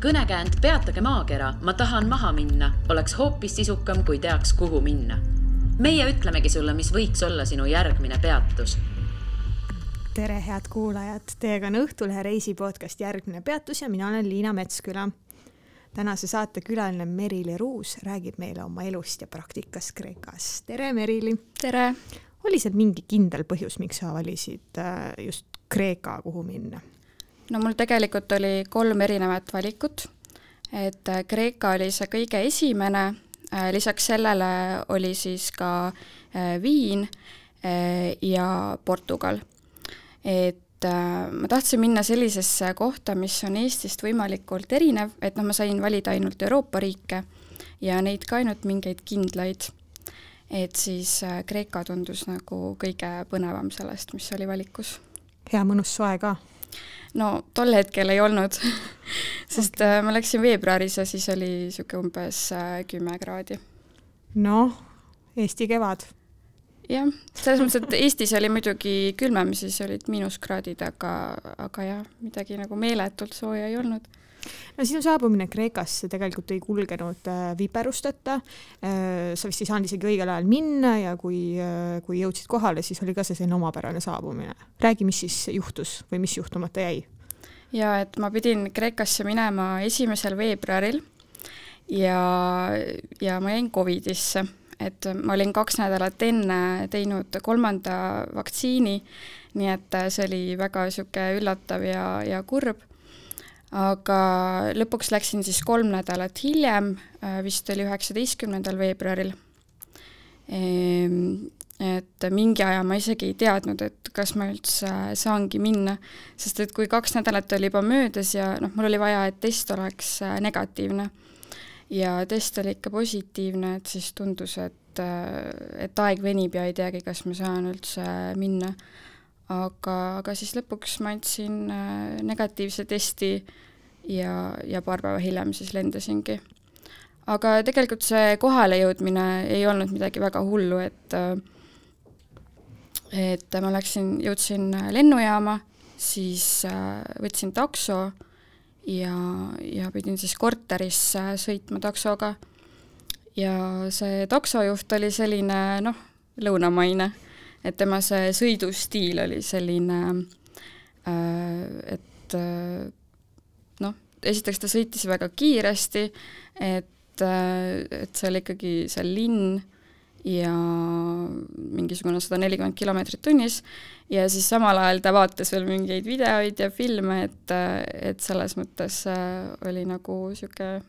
Kõnekäänd peatage maakera, ma tahan maha minna, oleks hoopis sisukam, kui teaks, kuhu minna. Meie ütlemegi sulle, mis võiks olla sinu järgmine peatus. Tere, head kuulajad! Teiega on Õhtulehe reisipodcast Järgmine peatus ja mina olen Liina Metsküla. Tänase saate külaline Merili Ruus räägib meile oma elust ja praktikast Kreekas. Tere, Merili! Tere! Oli seal mingi kindel põhjus, miks sa valisid just Kreeka, kuhu minna? No mul tegelikult oli 3 erinevat valikut. Et Kreeka oli see kõige esimene, lisaks sellele oli siis ka Viin ja Portugal. Et ma tahtsin minna sellisesse kohta, mis on Eestist võimalikult erinev, et ma sain valida ainult Euroopa riike ja neid ka ainult mingeid kindlaid. Et siis Kreeka tundus nagu kõige põnevam sellest, mis oli valikus. Hea mõnus soe ka? No tol hetkel ei olnud, sest ma läksin veebruaris ja siis oli siuke umbes 10 kraadi. No, Eesti kevad. Jah, selles mõttes, et Eestis oli muidugi külmem, siis olid miinuskraadid, aga jah, midagi nagu meeletult sooja ei olnud. No sinu saabumine Kreekasse tegelikult ei kulgenud viperusteta. Sa vist ei saanud isegi õigel ajal minna ja kui jõudsid kohale, siis oli ka see selline omapärane saabumine. Räägi, mis siis juhtus või mis juhtumata jäi? Ja, et ma pidin Kreekasse minema 1. veebruaril ja ma jäin Covidisse. Et ma olin 2 nädalat enne teinud 3. vaktsiini, nii et see oli väga siuke üllatav ja kurb. Aga lõpuks läksin siis 3 nädalat hiljem, vist oli 19. veebruaril. Et mingi aja ma isegi ei teadnud, et kas ma üldse saangi minna, sest et kui 2 nädalat oli juba möödas ja mul oli vaja, et test oleks negatiivne. Ja test oli ikka positiivne, et siis tundus, et aeg venib ja ei teagi, kas ma saan üldse minna. Aga siis lõpuks ma andsin negatiivse testi ja paar päeva hiljem siis lendasingi. Aga tegelikult see kohale jõudmine ei olnud midagi väga hullu, et ma jõudsin lennujaama, siis võtsin takso ja pidin siis korterisse sõitma taksoga. Ja see taksojuht oli selline, lõunamaine, et tema see sõidustiil oli selline, et esiteks ta sõitis väga kiiresti, et see oli ikkagi see linn ja mingisugune 140 kilomeetrit tunnis ja siis samal ajal ta vaatas veel mingeid videoid ja filme, et selles mõttes oli nagu siuke,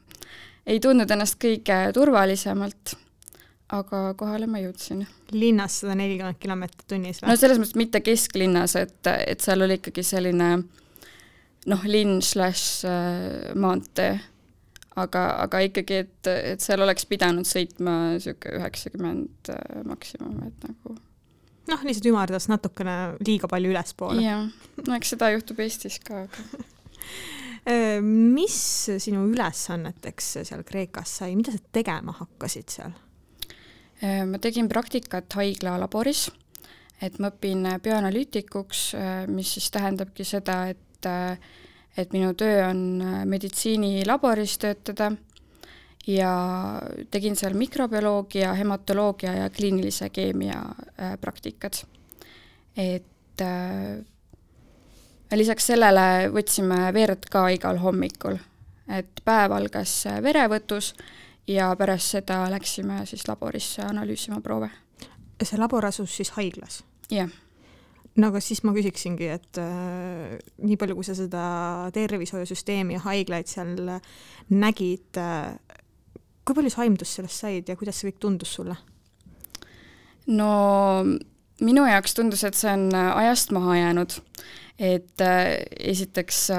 ei tundnud ennast kõige turvalisemalt, aga kohale ma jõudsin. Linnas 140 kilomeetrit tunnis või? No selles mõttes mitte kesklinnas, et seal oli ikkagi selline linn/maantee. Aga ikkagi, et seal oleks pidanud sõitma siuke 90 maksimum, et nagu... lihtsalt ümardas natukene liiga palju ülespoole. Jah, eks seda juhtub Eestis ka. Mis sinu ülesanneteks seal Kreekas sai? Mida sa tegema hakkasid seal? Ma tegin praktikat haigla laboris, et ma õpin bioanalüütikuks, mis siis tähendabki seda, et minu töö on meditsiinilaboris töötada ja tegin seal mikrobioloogia, hematoloogia ja kliinilise keemia praktikad. Et lisaks sellele võtsime verd ka igal hommikul, et päev algas verevõtus ja pärast seda läksime siis laborisse analüüsima proove. See labor asus siis haiglas? Jah. No aga siis ma küsiksingi, et nii palju, kui sa seda tervishoiusüsteemi ja haiglaid seal nägid, kui palju sa aimdust sellest said ja kuidas see kõik tundus sulle? No minu jaoks tundus, et see on ajast maha jäänud. Et esiteks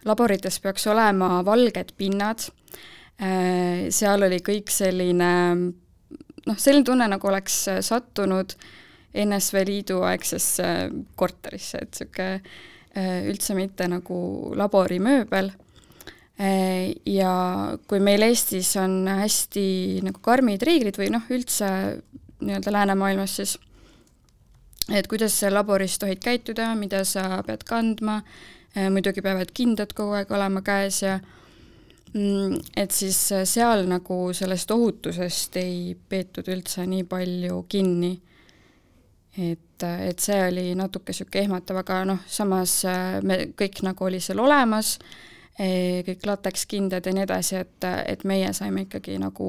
laborites peaks olema valged pinnad. Seal oli kõik selline tunne, nagu oleks sattunud NSV Liidu aegsesse korterisse, et siuke üldse mitte nagu laborimööbel. Ja kui meil Eestis on hästi nagu karmid reeglid või üldse nii-öelda läänemaailmas siis, et kuidas sa laboris tohid käituda, mida sa pead kandma, muidugi peavad kindad kogu aeg olema käes ja et siis seal nagu sellest ohutusest ei peetud üldse nii palju kinni. Et see oli natuke siuke ehmatav, aga samas me kõik nagu oli seal olemas, kõik latekskindad ja nii edasi, et meie saime ikkagi nagu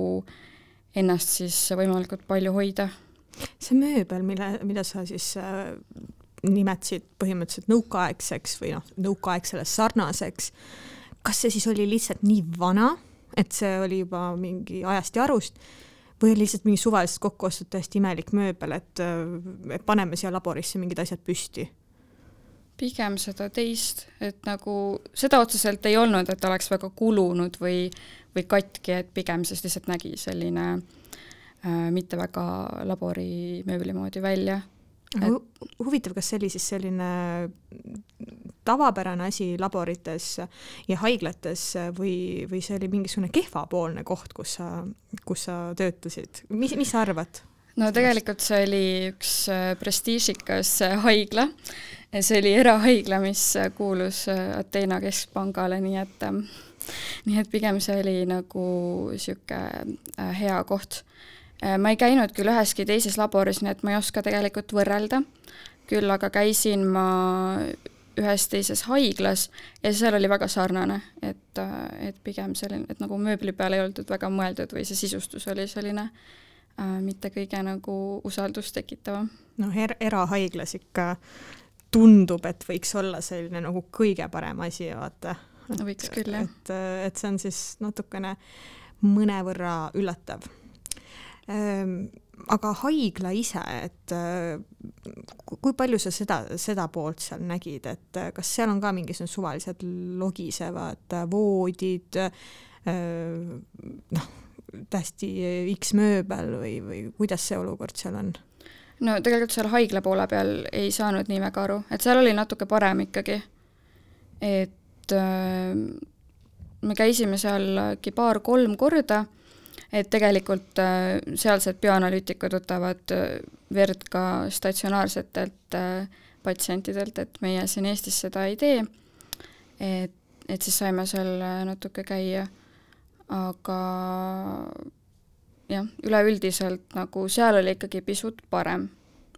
ennast siis võimalikult palju hoida. See mööbel, mida sa siis nimetasid põhimõtteliselt nõukaaegseks või nõukaaegsele sarnaseks, kas see siis oli lihtsalt nii vana, et see oli juba mingi ajast ja arust, või oli lihtsalt mingi suvaliselt kokku ostud täiesti imelik mööbel, et paneme siia laborisse mingid asjad püsti? Pigem seda teist, et nagu seda otseselt ei olnud, et oleks väga kulunud või katki, et pigem siis lihtsalt nägi selline mitte väga labori mööbli moodi välja. Huvitav, kas see oli siis selline tavapärane asi laborites ja haiglates või see oli mingisugune kehvapoolne koht, kus sa töötasid? Mis sa arvad? No tegelikult see oli üks prestiižikas haigla. See oli erahaigla, mis kuulus Ateena keskpangale, nii et pigem see oli nagu siuke hea koht. Ma ei käinud küll üheski teises laboris, nii et ma ei oska tegelikult võrrelda. Küll aga käisin ma ühes teises haiglas ja seal oli väga sarnane, et pigem selline, et nagu mööbli peale ei olnud väga mõeldud või see sisustus oli selline mitte kõige nagu usaldust tekitava. Erahaiglas ikka tundub, et võiks olla selline nagu kõige parem asi, vaata. Võiks küll, jah. Et see on siis natukene mõnevõrra üllatav. Aga haigla ise, et kui palju sa seda poolt seal nägid, et kas seal on ka mingisugused suvalised logisevad voodid, tähesti X mööbel või kuidas see olukord seal on? No tegelikult seal haigla poole peal ei saanud nii väga aru, et seal oli natuke parem ikkagi, et me käisime seal 2-3 korda, et tegelikult sealsed bioanalüütikud võtavad verd ka statsionaarsetelt patsientidelt, et meie siin Eestis seda ei tee, et siis saime seal natuke käia, aga jah, üleüldiselt nagu seal oli ikkagi pisut parem,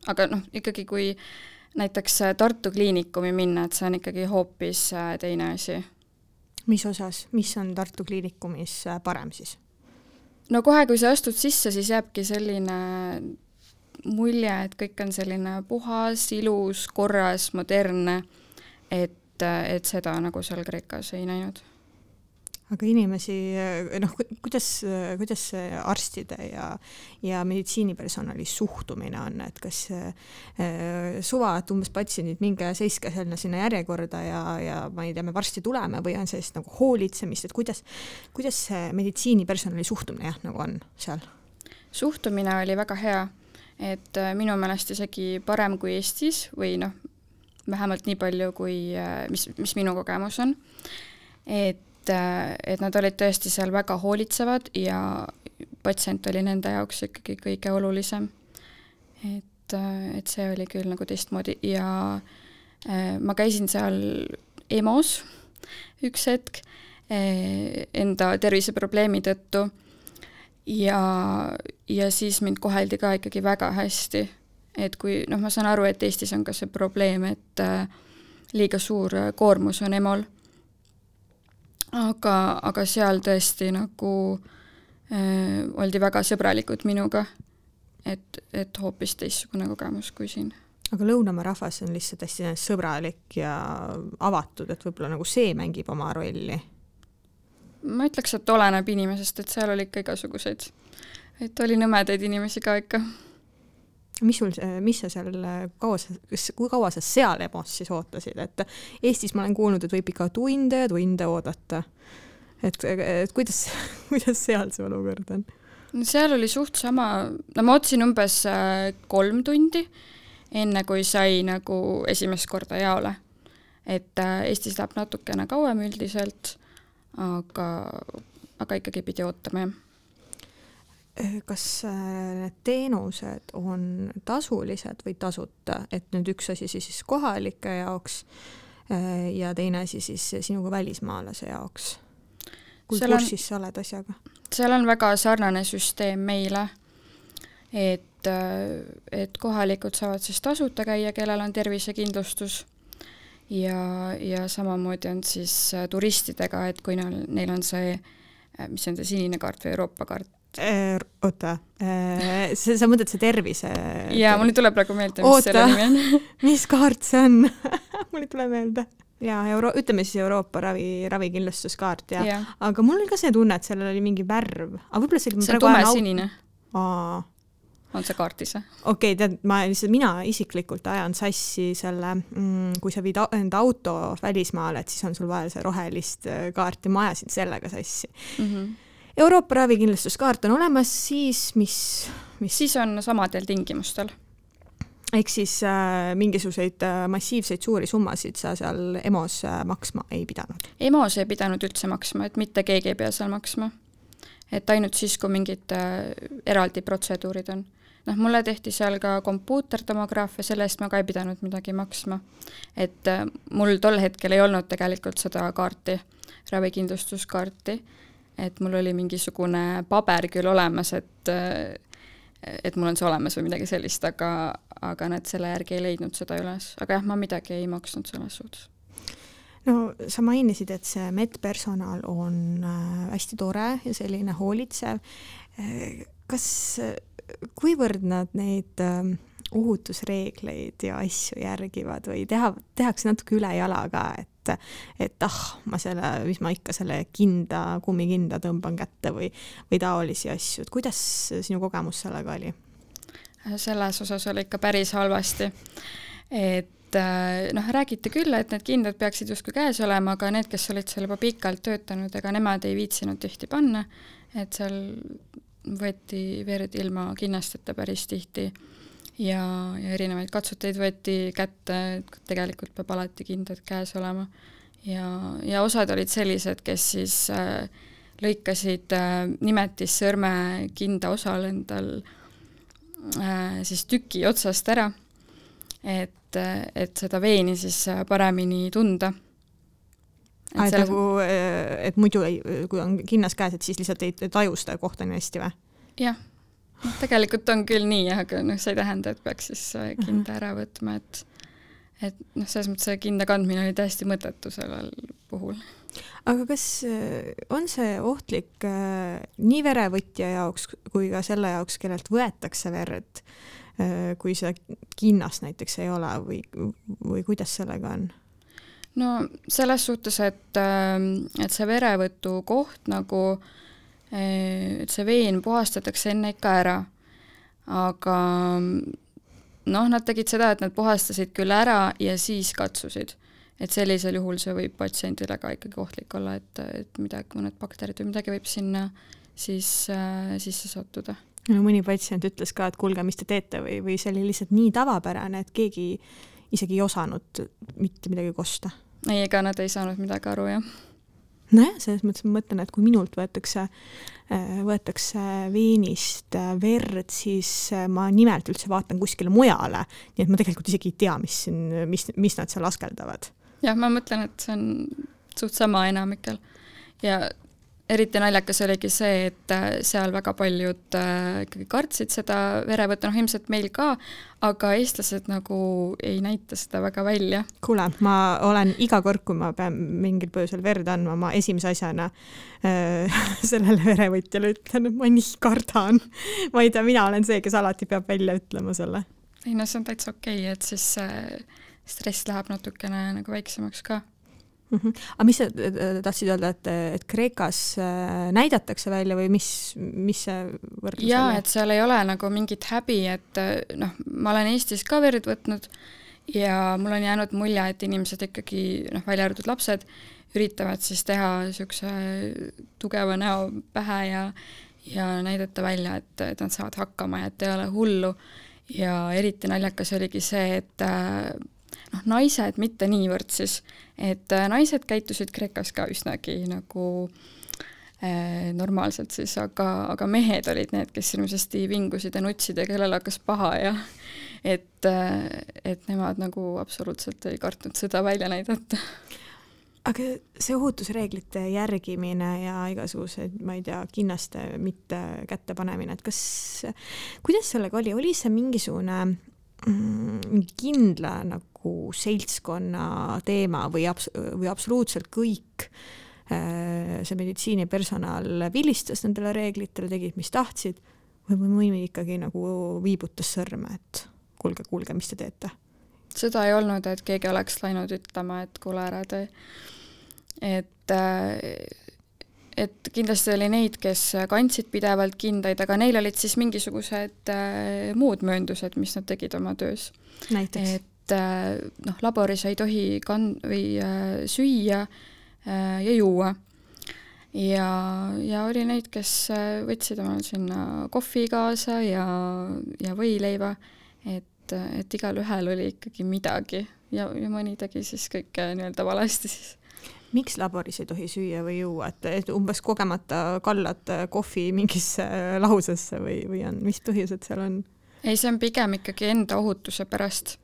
aga ikkagi kui näiteks Tartu kliinikumi minna, et see on ikkagi hoopis teine asi. Mis osas, mis on Tartu kliinikumis parem siis? No kohe, kui sa astud sisse, siis jääbki selline mulje, et kõik on selline puhas, ilus, korras, modernne, et seda nagu seal Kreekas ei näinud. Aga inimesi, kuidas see arstide ja meditsiinipersonali suhtumine on, et kas suva, et umbes patsiendid minge seiske sinna järjekorda ja ma ei tea, me varsti tuleme või on sellist nagu hoolitsemist, et kuidas see meditsiinipersonali suhtumine nagu on seal? Suhtumine oli väga hea, et minu meelest isegi parem kui Eestis või vähemalt nii palju, kui mis minu kogemus on, et nad olid tõesti seal väga hoolitsevad ja patsient oli nende jaoks ikkagi kõige olulisem. Et see oli küll nagu teistmoodi ja ma käisin seal EMO-s üks hetk enda terviseprobleemi tõttu ja siis mind koheldi ka ikkagi väga hästi. Et kui, ma saan aru, et Eestis on ka see probleem, et liiga suur koormus on EMO-l. Aga seal tõesti nagu oldi väga sõbralikud minuga, et hoopis teistsugune kogemus kui siin. Aga Lõunamaa rahvas on lihtsalt hästi sõbralik ja avatud, et võib-olla nagu see mängib oma rolli? Ma ütleks, et oleneb inimesest, et seal oli ikka igasuguseid. Et oli nõmedaid inimesi ka ikka. Mis sa seal, kui kaua sa seal EMO-s siis ootasid? Et Eestis ma olen kuulnud, et võib ikka tunde oodata. Et kuidas seal see olukord on? Seal oli suht sama, ma ootasin umbes 3 tundi, enne kui sai nagu esimest korda jaole. Et Eestis läheb natukene kauem üldiselt, aga ikkagi pidi ootama, jah. Kas need teenused on tasulised või tasuta, et nüüd üks asi siis kohalike jaoks, ja teine asi siis sinuga välismaalase jaoks. Kui kursis sa oled asjaga? Seal on väga sarnane süsteem meile, et kohalikud saavad siis tasuta käia, kellel on tervisekindlustus ja samamoodi on siis turistidega, et kui neil on see, mis on see sinine kaart või Euroopa kaart? Oota, sa mõtled see tervise? Jaa, mul ei tule praegu meelde, mis selle nimi on. Mis kaart see on? Mul ei tule meelde. Ja ütleme siis Euroopa ravikindlustuskaart ja. Aga mul oli ka see tunne, et sellel oli mingi värv. Aga see on tumesinine. On see kaartis? Okei, tead, mina isiklikult ajan sassi selle, kui sa viid enda auto välismaale, et siis on sul vaja see rohelist kaarti, ma ajasin sellega sassi. Euroopa ravikindlustuskaart on olemas, siis mis? Siis on samadel tingimustel. Ehk siis mingisuguseid massiivseid suuri summasid sa seal EMOs maksma ei pidanud? EMOs ei pidanud üldse maksma, et mitte keegi ei pea seal maksma. Et ainult siis, kui mingid eraldi protseduurid on. Mulle tehti seal ka kompuutertomograafia, selle eest ma ka ei pidanud midagi maksma. Et mul tol hetkel ei olnud tegelikult seda kaarti, ravikindlustuskaarti, et mul oli mingisugune paber küll olemas, et mul on see olemas või midagi sellist, aga nad selle järgi ei leidnud seda üles. Aga jah, ma midagi ei maksnud selles suhtes. No sa mainisid, et see medpersonal on hästi tore ja selline hoolitsev. Kuivõrd nad neid ohutusreegleid ja asju järgivad või tehakse natuke üle jala ka, et mis ma ikka selle kummikinda tõmban kätte või taolisi asju. Et kuidas sinu kogemus sellega oli? Selles osas oli ikka päris halvasti. Et räägiti küll, et need kindad peaksid justkui käes olema, aga need, kes olid seal juba pikalt töötanud, ega nemad ei viitsinud tihti panna, et seal võeti verd ilma kinnasteta päris tihti ja erinevaid katsuteid võeti kätte, et tegelikult peab alati kindad käes olema. Ja osad olid sellised, kes siis lõikasid nimetissõrme kinda osal endal siis tüki otsast ära, et seda veeni siis paremini tunda. Et muidu, kui on kinnas käes, et siis lihtsalt ei taju seda kohta nii hästi või? Jah, tegelikult on küll nii, aga see ei tähenda, et peaks siis kinda ära võtma, et selles mõttes see kinda kandmine oli täiesti mõttetu sellel puhul. Aga kas on see ohtlik nii verevõtja jaoks kui ka selle jaoks, kellelt võetakse verd, kui see kinnas näiteks ei ole või kuidas sellega on? No selles suhtes, et see verevõtu koht et see veen puhastatakse enne ikka ära, aga nad tegid seda, et nad puhastasid küll ära ja siis katsusid. Et sellisel juhul see võib patsiendile ka ikkagi ohtlik olla, et mõned bakterid või midagi võib sinna siis sisse sattuda. No, mõni patsient ütles ka, et kuulge, mis te teete või see oli lihtsalt nii tavapärane, et keegi isegi ei osanud mitte midagi kosta. Ei, ega nad ei saanud midagi aru, jah. Nojah, selles mõttes ma mõtlen, et kui minult võetakse veenist verd, siis ma nimelt üldse vaatan kuskile mujale, nii et ma tegelikult isegi ei tea, mis nad seal askeldavad. Jah, ma mõtlen, et see on suht sama enamikel. Ja eriti naljakas oligi see, et seal väga paljud ikkagi kartsid seda verevõtta, ilmselt meil ka, aga eestlased nagu ei näita seda väga välja. Kuule, ma olen iga kord, kui ma pean mingil põhjusel verd andma, ma esimese asjana sellele verevõtjale ütlen, et ma nii kardan. Ma ei tea, mina olen see, kes alati peab välja ütlema selle. Ei, no see on täitsa okei, et siis stress läheb natukene nagu väiksemaks ka. Aga mis sa tahtsid öelda, et Kreekas näidatakse välja või mis see võrdlus oli? Jaa, et seal ei ole nagu mingit häbi, et ma olen Eestis ka verd võtnud ja mul on jäänud mulje, et inimesed ikkagi, välja arvatud lapsed, üritavad siis teha niisuguse tugeva näo pähe ja näidata välja, et nad saavad hakkama ja et ei ole hullu. Ja eriti naljakas oligi see, et naised mitte niivõrd siis, et naised käitusid Kreekas ka üsnagi nagu normaalselt siis, aga mehed olid need, kes ilmsesti vingusid ja nutsid ja kellel hakkas paha et nemad nagu absoluutselt ei kartnud seda välja näidata. Aga see ohutusreeglite järgimine ja igasugused, ma ei tea, kinnaste mitte kätte panemine, et kuidas sellega oli see mingisugune kindla nagu seltskonna teema või absoluutselt kõik see meditsiinipersonal vilistas nendele reeglitele, tegid, mis tahtsid, või mõni ikkagi nagu viibutas sõrme, et kuulge, mis te teete? Seda ei olnud, et keegi oleks läinud ütlema, et kuule ära tee. Et kindlasti oli neid, kes kandsid pidevalt kindaid, aga neil olid siis mingisugused muud mööndused, mis nad tegid oma töös. Näiteks? Et laboris ei tohi süüa ja juua. Ja oli neid, kes võtsid omal sinna kohvi kaasa ja võileiva, et igal ühel oli ikkagi midagi ja mõni tegi siis kõike nii-öelda valesti siis. Miks laboris ei tohi süüa või juua, et umbes kogemata kallad kohvi mingisse lahusesse või on, mis põhjused seal on? Ei, see on pigem ikkagi enda ohutuse pärast,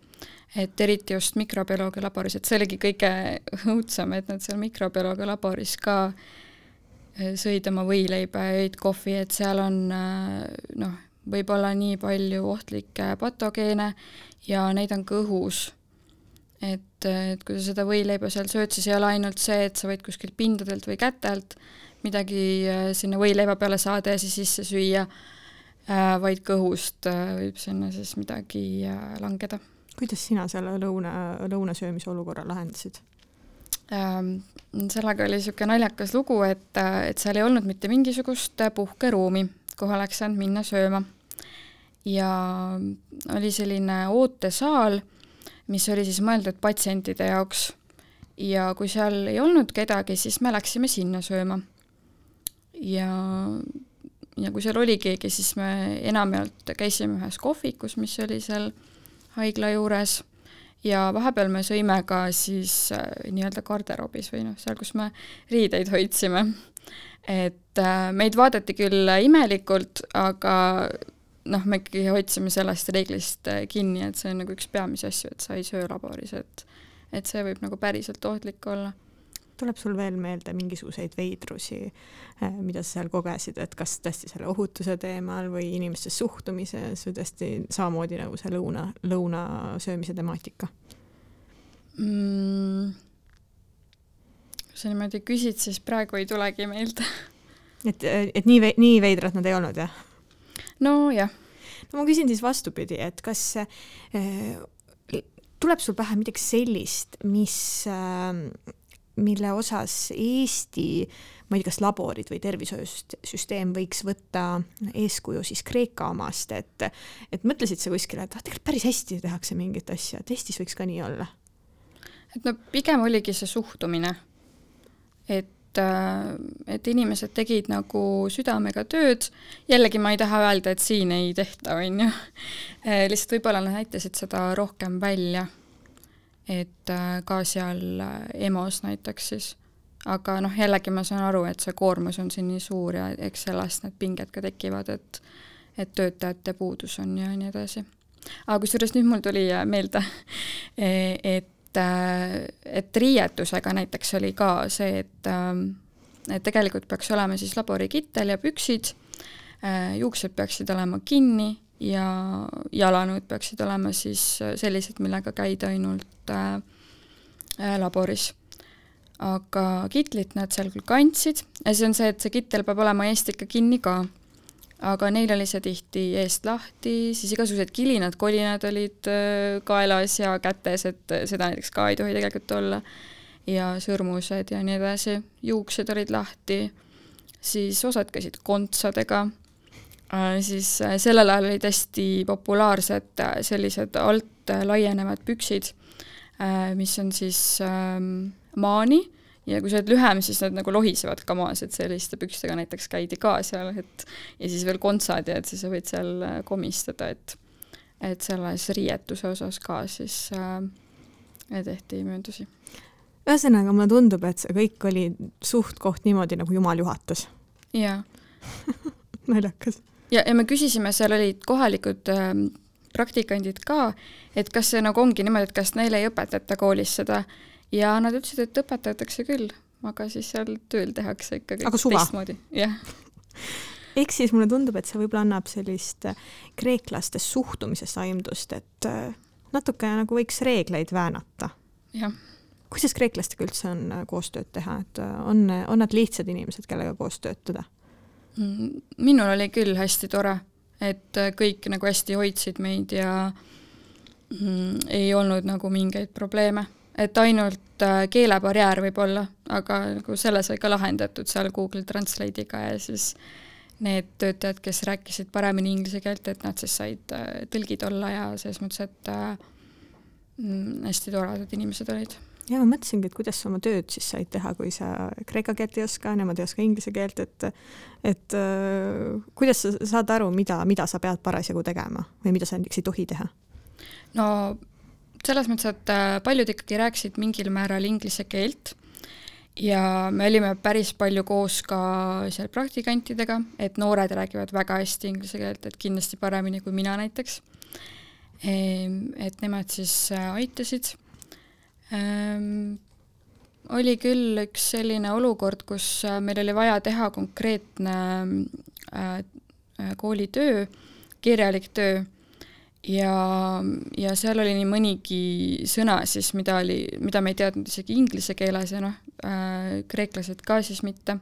et eriti just mikrobioloogia laboris, et see oligi kõige õudsam, et nad seal mikrobioloogia laboris ka sõid oma võileiba ja jõid kohvi, et seal on võib-olla nii palju ohtlikke patogeene ja neid on ka õhus. Et kui sa seda võileiba seal sööd, siis ei ole ainult see, et sa võid kuskilt pindadelt või kätelt midagi sinna võileiba peale saada ja siis sisse süüa, vaid kõhust võib sinna siis midagi langeda. Kuidas sina selle lõunasöömise olukorra lahendasid? Sellega oli niisugune naljakas lugu, et seal ei olnud mitte mingisugust puhkeruumi, kuhu oleks saanud minna sööma. Ja oli selline ootesaal, mis oli siis mõeldud patsientide jaoks. Ja kui seal ei olnud kedagi, siis me läksime sinna sööma. Ja kui seal oli keegi, siis me enamjaolt käisime ühes kohvikus, mis oli seal haigla juures. Ja vahepeal me sõime ka siis nii-öelda garderoobis või seal, kus me riideid hoidsime. Et meid vaadati küll imelikult, aga me ikkagi hoidsime sellest reeglist kinni, et see on nagu üks peamisi asju, et sa ei söö laboris, et see võib nagu päriselt ohtlik olla. Tuleb sul veel meelde mingisuguseid veidrusi, mida sa seal kogesid, et kas tõesti selle ohutuse teemal või inimeste suhtumises või tõesti samamoodi nagu see lõuna söömise temaatika? Kui sa niimoodi küsid, siis praegu ei tulegi meelde. Et nii veidrad nad ei olnud, jah? No jah. No ma küsin siis vastupidi, et kas tuleb sul pähe midagi sellist, mille osas Eesti, ma ei tea, kas laborid või tervishoiusüsteem võiks võtta eeskuju siis Kreeka omast, et mõtlesid sa kuskile, et tegelikult päris hästi tehakse mingit asja, et Eestis võiks ka nii olla? Et pigem oligi see suhtumine, et inimesed tegid nagu südamega tööd, jällegi ma ei taha öelda, et siin ei tehta, on ju. Lihtsalt võib-olla nad näitasid seda rohkem välja, et ka seal EMO-s näiteks siis. Aga jällegi ma saan aru, et see koormus on siin nii suur ja eks sellest need pinged ka tekivad, et töötajate puudus on ja nii edasi. Aga kusjuures nüüd mul tuli meelde, et riietusega näiteks oli ka see, et tegelikult peaks olema siis laborikittel ja püksid, juuksed peaksid olema kinni ja jalanõud peaksid olema siis sellised, millega käida ainult laboris. Aga kitlit nad seal küll kandsid ja see on see, et see kittel peab olema eest ikka kinni ka. Aga neil oli see tihti eest lahti, siis igasugused kilinad, kolinad olid kaelas ja kätes, et seda näiteks ka ei tohi tegelikult olla. Ja sõrmused ja nii edasi. Juuksed olid lahti, siis osad käisid kontsadega. Siis sellel ajal olid hästi populaarsed sellised alt laienevad püksid, mis on siis maani. Ja kui sa oled lühem, siis nad nagu lohisevad ka maas, et selliste pükstega näiteks käidi ka seal, ja siis veel kontsad ja et siis sa võid seal komistada, et selles riietuse osas ka siis tehti mööndusi. Ühesõnaga, mulle tundub, et see kõik oli suht koht niimoodi, nagu Jumal juhatas. Jaa. Naljakas. Ja me küsisime, seal olid kohalikud praktikandid ka, et kas see nagu ongi niimoodi, et kas neile ei õpetata koolis seda ja nad ütlesid, et õpetatakse küll, aga siis seal tööl tehakse ikkagi teistmoodi. Jah. Ehk siis mulle tundub, et see võib-olla annab sellist kreeklaste suhtumisest aimdust, et natuke nagu võiks reegleid väänata. Jah. Kuidas kreeklastega üldse on koostööd teha, et on nad lihtsad inimesed, kellega koos töötada? Minul oli küll hästi tore, et kõik nagu hästi hoidsid meid ja ei olnud nagu mingeid probleeme. Et ainult keelebarjäär võib olla, aga nagu selle sai ka lahendatud seal Google Translate'iga ja siis need töötajad, kes rääkisid paremini inglise keelt, et nad siis said tõlgid olla ja selles mõttes, et hästi toredad inimesed olid. Ja ma mõtlesingi, et kuidas sa oma tööd siis said teha, kui sa kreeka keelt ei oska, nemad ei oska inglise keelt, et kuidas sa saad aru, mida sa pead parasjagu tegema või mida sa näiteks ei tohi teha? No selles mõttes, et paljud ikkagi rääkisid mingil määral inglise keelt ja me olime päris palju koos ka seal praktikantidega, et noored räägivad väga hästi inglise keelt, et kindlasti paremini kui mina näiteks. Et nemad siis aitasid. Oli küll üks selline olukord, kus meil oli vaja teha konkreetne koolitöö, kirjalik töö ja seal oli nii mõnigi sõna siis, mida me ei teadnud isegi inglise keeles ja kreeklased ka siis mitte.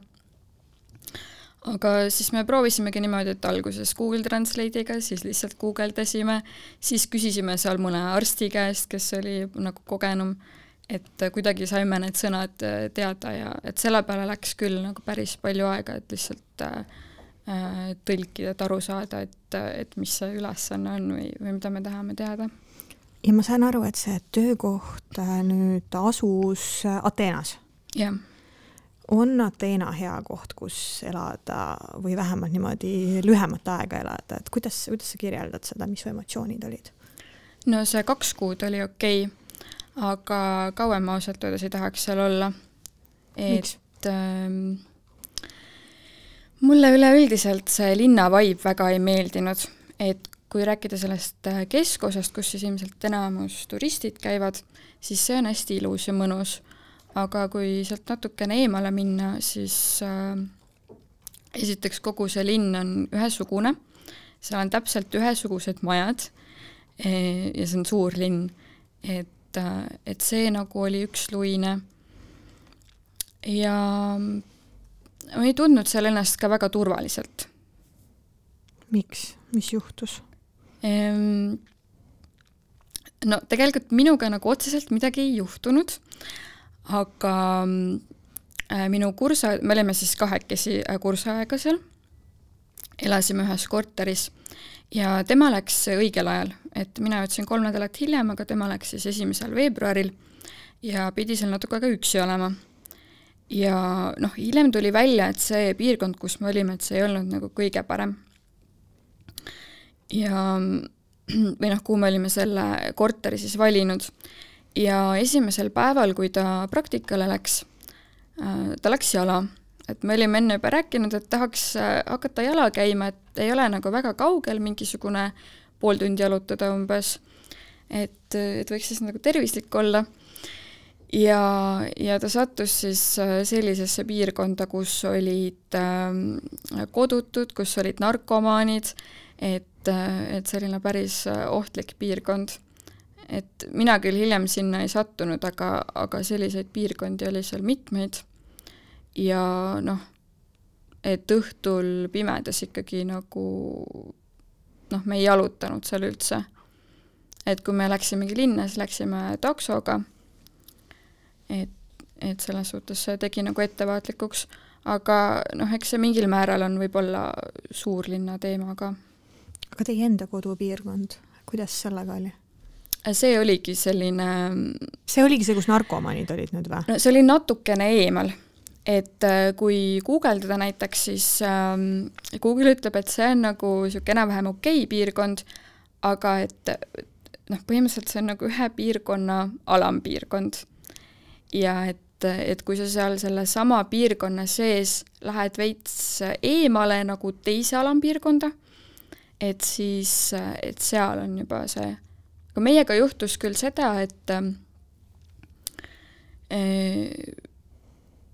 Aga siis me proovisimegi niimoodi, et alguses Google Translate'iga, siis lihtsalt guugeldasime, siis küsisime seal mõne arsti käest, kes oli nagu kogenum, et kuidagi saime need sõnad teada ja et selle peale läks küll nagu päris palju aega, et lihtsalt tõlkida, et aru saada, et mis see ülesanne on või mida me tahame teada. Ja ma saan aru, et see töökoht nüüd asus Ateenas. Jah. On Ateena hea koht, kus elada või vähemalt niimoodi lühemat aega elada, et kuidas sa kirjeldad seda, mis emotsioonid olid? No see 2 kuud oli okei, aga kauem ma ausalt öeldes ei tahaks seal olla. Miks? Mulle üleüldiselt see linna vibe väga ei meeldinud, et kui rääkida sellest keskosast, kus siis ilmselt enamus turistid käivad, siis see on hästi ilus ja mõnus. Aga kui sealt natukene eemale minna, siis esiteks kogu see linn on ühesugune, seal on täpselt ühesugused majad ja see on suur linn, et see nagu oli üksluine ja ma ei tundnud seal ennast ka väga turvaliselt. Miks? Mis juhtus? No tegelikult minuga nagu otseselt midagi ei juhtunud, aga minu me olime siis 2 kursaega seal, elasime ühes korteris ja tema läks õigel ajal, et mina jõudsin 3 nädalat hiljem, aga tema läks siis 1. veebruaril ja pidi seal natuke aega üksi olema. Ja hiljem tuli välja, et see piirkond, kus me olime, et see ei olnud nagu kõige parem. Ja või kuhu me olime selle korteri siis valinud. Ja esimesel päeval, kui ta praktikale läks, ta läks jala. Et me olime enne juba rääkinud, et tahaks hakata jala käima, et ei ole nagu väga kaugel, mingisugune pool tundi jalutada umbes, et võiks siis nagu tervislik olla. Ja ta sattus siis sellisesse piirkonda, kus olid kodutud, kus olid narkomaanid, et selline päris ohtlik piirkond. Et mina küll hiljem sinna ei sattunud, aga selliseid piirkondi oli seal mitmeid. Ja et õhtul pimedas ikkagi nagu me ei jalutanud seal üldse. Et kui me läksimegi linna, siis läksime taksoga. Et selles suhtes see tegi nagu ettevaatlikuks, aga eks see mingil määral on võib-olla suurlinna teema ka. Aga teie enda kodupiirkond, kuidas sellega oli? See oligi selline... See oligi see, kus narkomanid olid nüüd või? No, see oli natukene eemal, et kui guugeldada näiteks, siis Google ütleb, et see on nagu enam-vähem okei piirkond, aga et põhimõtteliselt see on nagu ühe piirkonna alampiirkond. Ja et kui sa seal selle sama piirkonna sees lähed veits eemale nagu teise alampiirkonda, et siis, et seal on juba see, aga meiega juhtus küll seda, et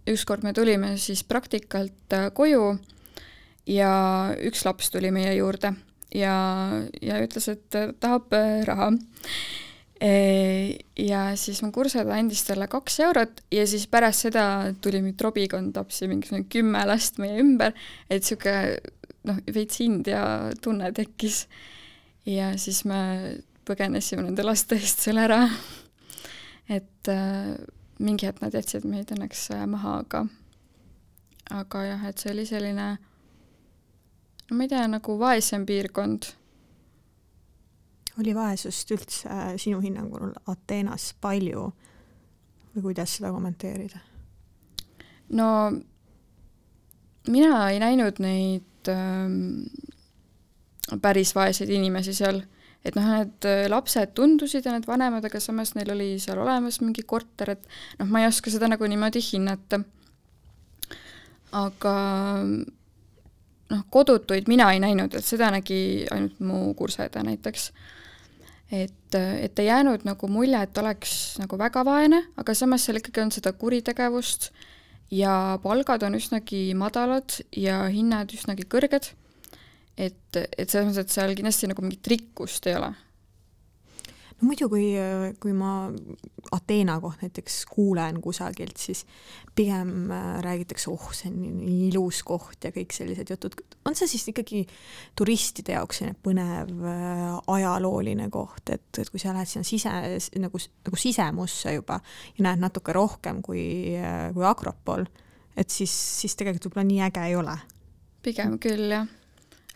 ükskord me tulime siis praktikalt koju ja üks laps tuli meie juurde ja ütles, et tahab raha. Ja siis mu kursada andis talle 2 eurot ja siis pärast seda tuli mind robikond tapsi mingi 10 last meie ümber, et siuke veits India tunne tekkis. Ja siis me põgenesime nende laste eest seal ära. Et mingi hetk nad jätsid meid õnneks maha, aga jah, et see oli selline, ma ei tea, nagu vaesem piirkond. Oli vaesust üldse sinu hinnangul Ateenas palju või kuidas seda kommenteerida? No mina ei näinud neid päris vaeseid inimesi seal, et need lapsed tundusid ja need vanemad, aga samas neil oli seal olemas mingi korter, et ma ei oska seda nagu niimoodi hinnata. Aga kodutuid mina ei näinud, et seda nägi ainult mu kurseda näiteks. Et ei jäänud nagu mulje, et oleks nagu väga vaene, aga samas seal ikkagi on seda kuritegevust ja palgad on üsnagi madalad ja hinnad üsnagi kõrged. Et selles mõttes, et seal kindlasti nagu mingit rikkust ei ole. No muidu, kui ma Ateena koht näiteks kuulen kusagilt, siis pigem räägitakse, see on nii ilus koht ja kõik sellised jutud. On see siis ikkagi turistide jaoks põnev ajalooline koht, et kui sa lähed sinna nagu sisemusse juba ja näed natuke rohkem kui Akropol, et siis tegelikult võib-olla nii äge ei ole? Pigem küll, jah.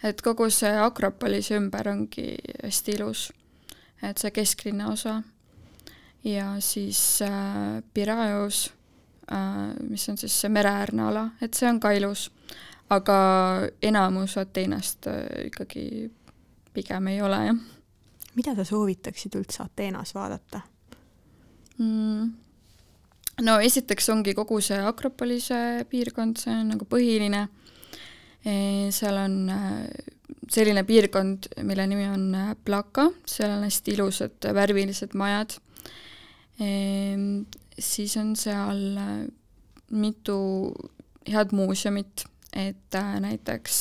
Et kogu see Akropolis ümber ongi hästi ilus. Et see kesklinna osa ja siis Piraios, mis on siis see mereäärne ala, et see on ka ilus, aga enamus Ateenast ikkagi pigem ei ole, jah. Mida sa soovitaksid üldse Ateenas vaadata? No esiteks ongi kogu see Akropolise piirkond, see on nagu põhiline. Seal on selline piirkond, mille nimi on Plaka, seal on hästi ilusad värvilised majad. Siis on seal mitu head muuseumit, et näiteks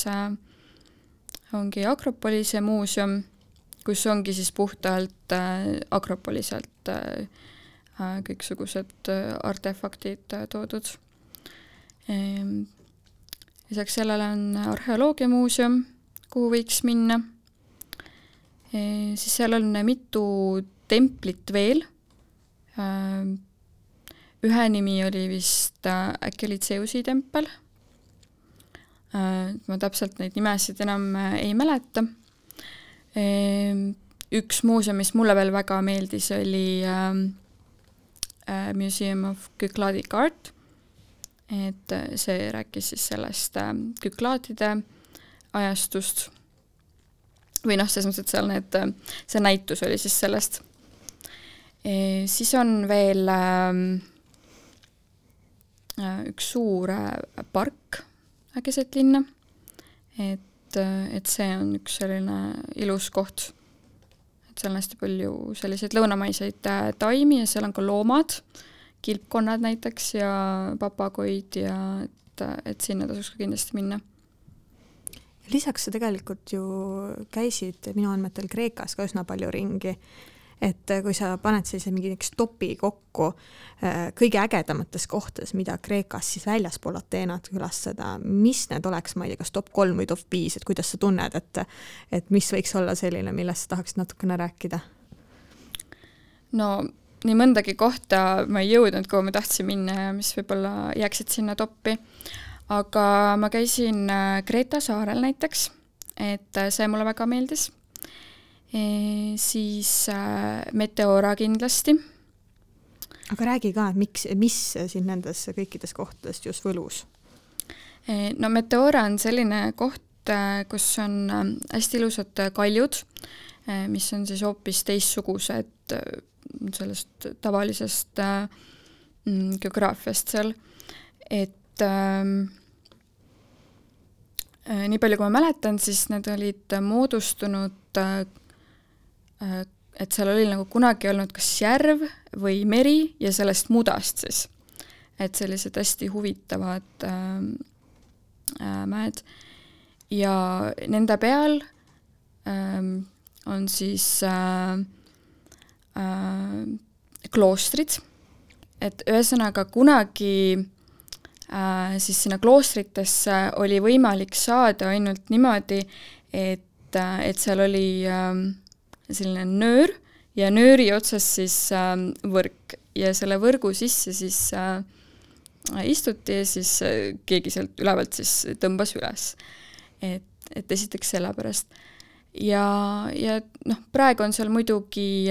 ongi Akropolise muuseum, kus ongi siis puhtalt Akropoliselt kõiksugused artefaktid toodud. Lisaks sellele on arheoloogiamuuseum, kuhu võiks minna. Siis seal on mitu templit veel. Ühe nimi oli vist äkki oli Zeusi tempel. Ma täpselt neid nimesid enam ei mäleta. Üks muuseum, mis mulle veel väga meeldis, oli Museum of Kyklaadic Art. Et see rääkis siis sellest Kyklaadide ajastust või selles mõttes, et seal see näitus oli siis sellest. Siis on veel üks suur park keset linna, et see on üks selline ilus koht, et seal on hästi palju selliseid lõunamaiseid taimi ja seal on ka loomad, kilpkonnad näiteks ja papagoid ja et sinna tasuks ka kindlasti minna. Lisaks sa tegelikult ju käisid minu andmetel Kreekas ka üsna palju ringi, et kui sa paned sellise mingi topi kokku kõige ägedamates kohtades, mida Kreekas siis väljaspool Ateenat külastada, mis need oleks, ma ei tea, kas top 3 või top 5, et kuidas sa tunned, et mis võiks olla selline, millest sa tahaksid natukene rääkida? No nii mõndagi kohta ma ei jõudnud, kuhu ma tahtsin minna ja mis võib-olla jääksid sinna toppi. Aga ma käisin Kreeta saarel näiteks, et see mulle väga meeldis. Siis Meteora kindlasti. Aga räägi ka, mis siin nendes kõikides kohtadest just võlus? No Meteora on selline koht, kus on hästi ilusad kaljud, mis on siis hoopis teistsugused sellest tavalisest geograafiast seal, et Nii palju, kui ma mäletan, siis need olid moodustunud, et seal oli nagu kunagi olnud kas järv või meri ja sellest mudast siis. Et sellised hästi huvitavad mäed. Ja nende peal on siis kloostrid, et ühesõnaga kunagi siis sinna kloostritesse oli võimalik saada ainult niimoodi, et seal oli selline nöör ja nööri otsas siis võrk ja selle võrgu sisse siis istuti ja siis keegi sealt ülevalt siis tõmbas üles. Et esiteks selle pärast. Ja noh, praegu on seal muidugi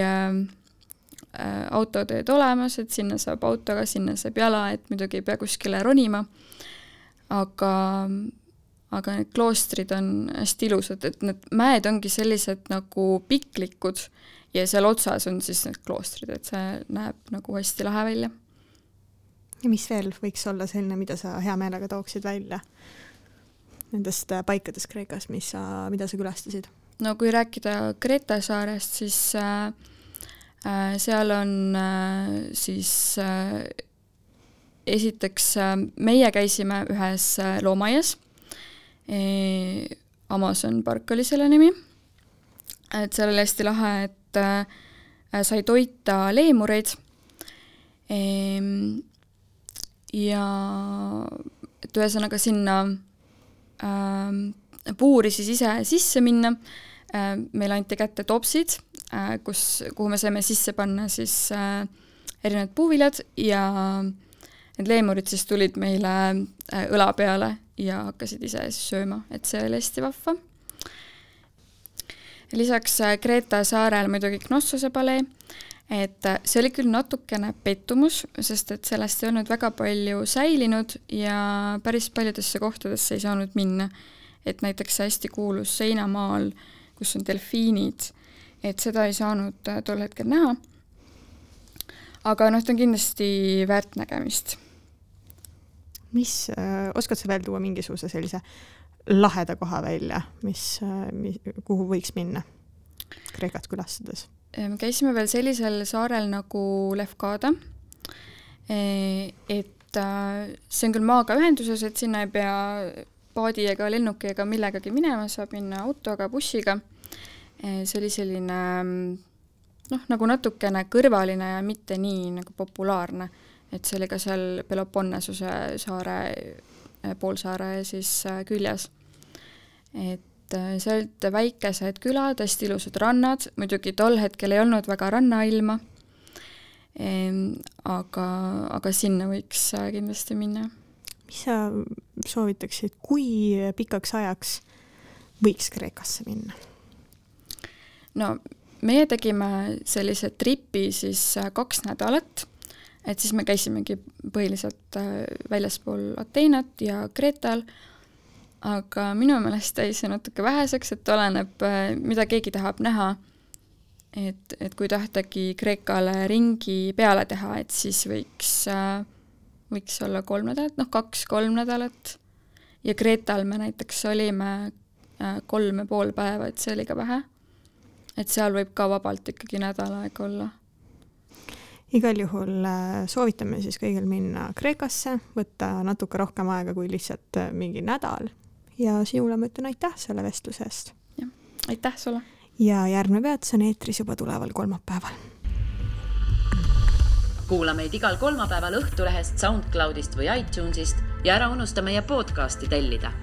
autoteed olemas, et sinna saab autoga, sinna saab jala, et muidugi ei pea kuskile ronima, aga need kloostrid on hästi ilusad, et need mäed ongi sellised nagu piklikud ja seal otsas on siis need kloostrid, et see näeb nagu hästi lahe välja. Ja mis veel võiks olla selline, mida sa hea meelega tooksid välja nendest paikadest Kreekas, mida sa külastasid? No kui rääkida Kreta saarest, siis seal on siis esiteks meie käisime ühes loomaias, Amazon Park oli selle nimi, et seal oli hästi lahe, et sai toita leemureid ja et ühesõnaga sinna puuri siis ise sisse minna. Meil anti kätte topsid, kuhu me saime sisse panna siis erinevad puuviljad ja need leemurid siis tulid meile õla peale ja hakkasid ise sööma, et see oli hästi vahva. Lisaks Kreta saarel muidugi Knossose palee, et see oli küll natukene pettumus, sest et sellest ei olnud väga palju säilinud ja päris paljudesse kohtadesse ei saanud minna. Et näiteks hästi kuulus seinamaal, kus on delfiinid, et seda ei saanud tol hetkel näha. Aga ta on kindlasti väärt nägemist. Oskad sa veel tuua mingisuguse sellise laheda koha välja, kuhu võiks minna Kreekat külastades? Me käisime veel sellisel saarel nagu Lefkada, et see on küll maaga ühenduses, et sinna ei pea paadi ega lennuki ega millegagi minema, saab minna autoga, bussiga. See oli selline nagu natukene kõrvaline ja mitte nii nagu populaarne, et see oli ka seal Peloponnasuse saare, poolsaare siis küljes. Et see olid väikesed külad, hästi ilusad rannad, muidugi tol hetkel ei olnud väga rannailma, aga sinna võiks kindlasti minna. Mis sa soovitaksid, kui pikaks ajaks võiks Kreekasse minna? No, meie tegime sellise tripi siis 2 nädalat, et siis me käisimegi põhiliselt väljaspool Ateenat ja Kreetal, aga minu meelest jäi see natuke väheseks, et oleneb, mida keegi tahab näha, et kui tahtagi Kreekale ringi peale teha, et siis võiks olla 3 nädalat, 2-3 nädalat. Ja Kreetal me näiteks olime 3,5 päeva, et see oli ka vähe. Et seal võib ka vabalt ikkagi nädal aega olla. Igal juhul soovitame siis kõigil minna Kreekasse, võtta natuke rohkem aega kui lihtsalt mingi nädal. Ja sinule ma ütlen aitäh selle vestluse eest. Ja, aitäh sulle. Ja järgmine peatus on eetris juba tuleval kolmapäeval. Kuula meid igal kolmapäeval Õhtulehest, SoundCloudist või iTunesist ja ära unusta meie podcasti tellida.